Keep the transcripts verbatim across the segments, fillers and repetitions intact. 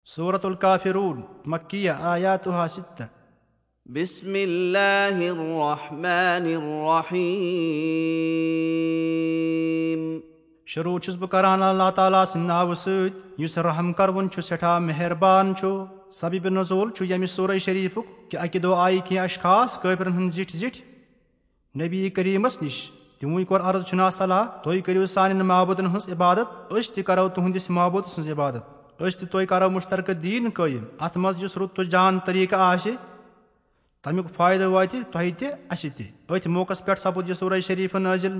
سورة الكافرون، مكية، آياتها ستة۔ بسم الله الرحمن الرحيم۔ شروع چھُس بہٕ کران اللہ تعالیٰ سٕنٛدِ ناوٕ سۭتۍ، یُس رحم کروُن چھُ، سٮ۪ٹھاہ مہربان چھُ۔ سبب نزول چھُ ییٚمہِ سورہ شریفُک کہِ اَکہِ دۄہ آیہِ کینٛہہ اشخاص کٲفرن ہٕنٛدۍ زِٹھۍ زِٹھۍ نبی کریمس نِش۔ تِموٕے کوٚر عرض، چھُنا صلاح، تُہۍ کٔرِو سانٮ۪ن معبوٗدن ہٕنٛز عبادت، أسۍ تہِ کرو تُہنٛدِس معبوٗد سٕنٛز عبادت۔ أسۍ تہِ تُہۍ کرو مشترکہٕ دیٖن قٲیِم۔ اتھ منٛز یُس رُت تہٕ جان طریٖقہٕ آسہِ، تمیُک فٲیدٕ واتہِ تۄہہِ تہِ، اسہِ تہِ۔ أتھۍ موقعس پٮ۪ٹھ سپُد یہِ سورہ شریف نٲزِل۔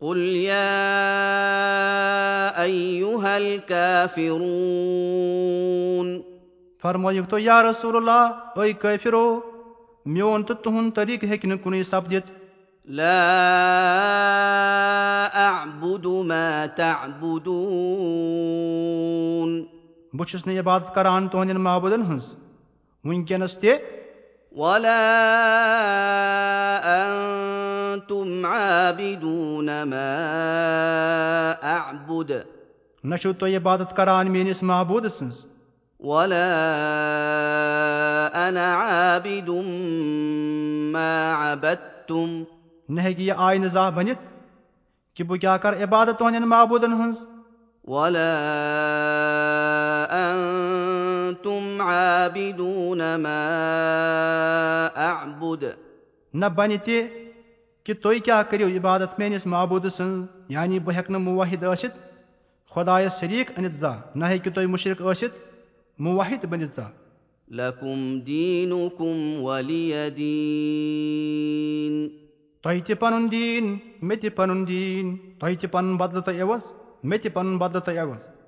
قل يا أيها الكافرون۔ فرمٲیِو تُہۍ، یا رسول اللہ، اے کٲفرو، میون تہٕ تُہُنٛد طریٖقہٕ ہیٚکہِ نہٕ کُنُے سپدِتھ۔ لا أعبد ما تعبدون۔ بہٕ چھُس نہٕ عبادت کران تُہنٛدٮ۪ن معبوٗدن ہٕنٛز وٕنکیٚنس تہِ۔ ولا أنتم عابدون ما أعبد۔ نہ چھِو تُہۍ عبادت کران میٲنِس معبوٗد سٕنٛز۔ ولا أنا عابد ما عبدتم۔ نہ ہیٚکہِ یہِ آینہٕ زانٛہہ بٔنِتھ کہِ بہٕ کیٛاہ کرٕ عبادت تُہنٛدٮ۪ن معبوٗدن ہٕنٛز۔ ولا أنتم عابدون ما أعبد۔ نہ بنہِ تہِ کہِ تُہۍ کیٛاہ کٔرِو عبادت میٲنِس معبوٗد سٕنٛز، یعنی بہٕ ہیٚکہٕ نہٕ موحد ٲسِتھ، خۄدایس شریٖک أنِتھ زانٛہہ، نہ ہیٚکِو تُہۍ مُشرِک ٲسِتھ، موحد بٔنِتھ زانٛہہ۔ لكم دينكم ولي دين۔ تۄہہِ تہِ پنُن دیٖن، مےٚ تہِ پنُن دیٖن، تۄہہِ تہِ پنُن بدلہٕ تہٕ عوض، مےٚ تہِ پنُن بدلہٕ تہٕ عوض۔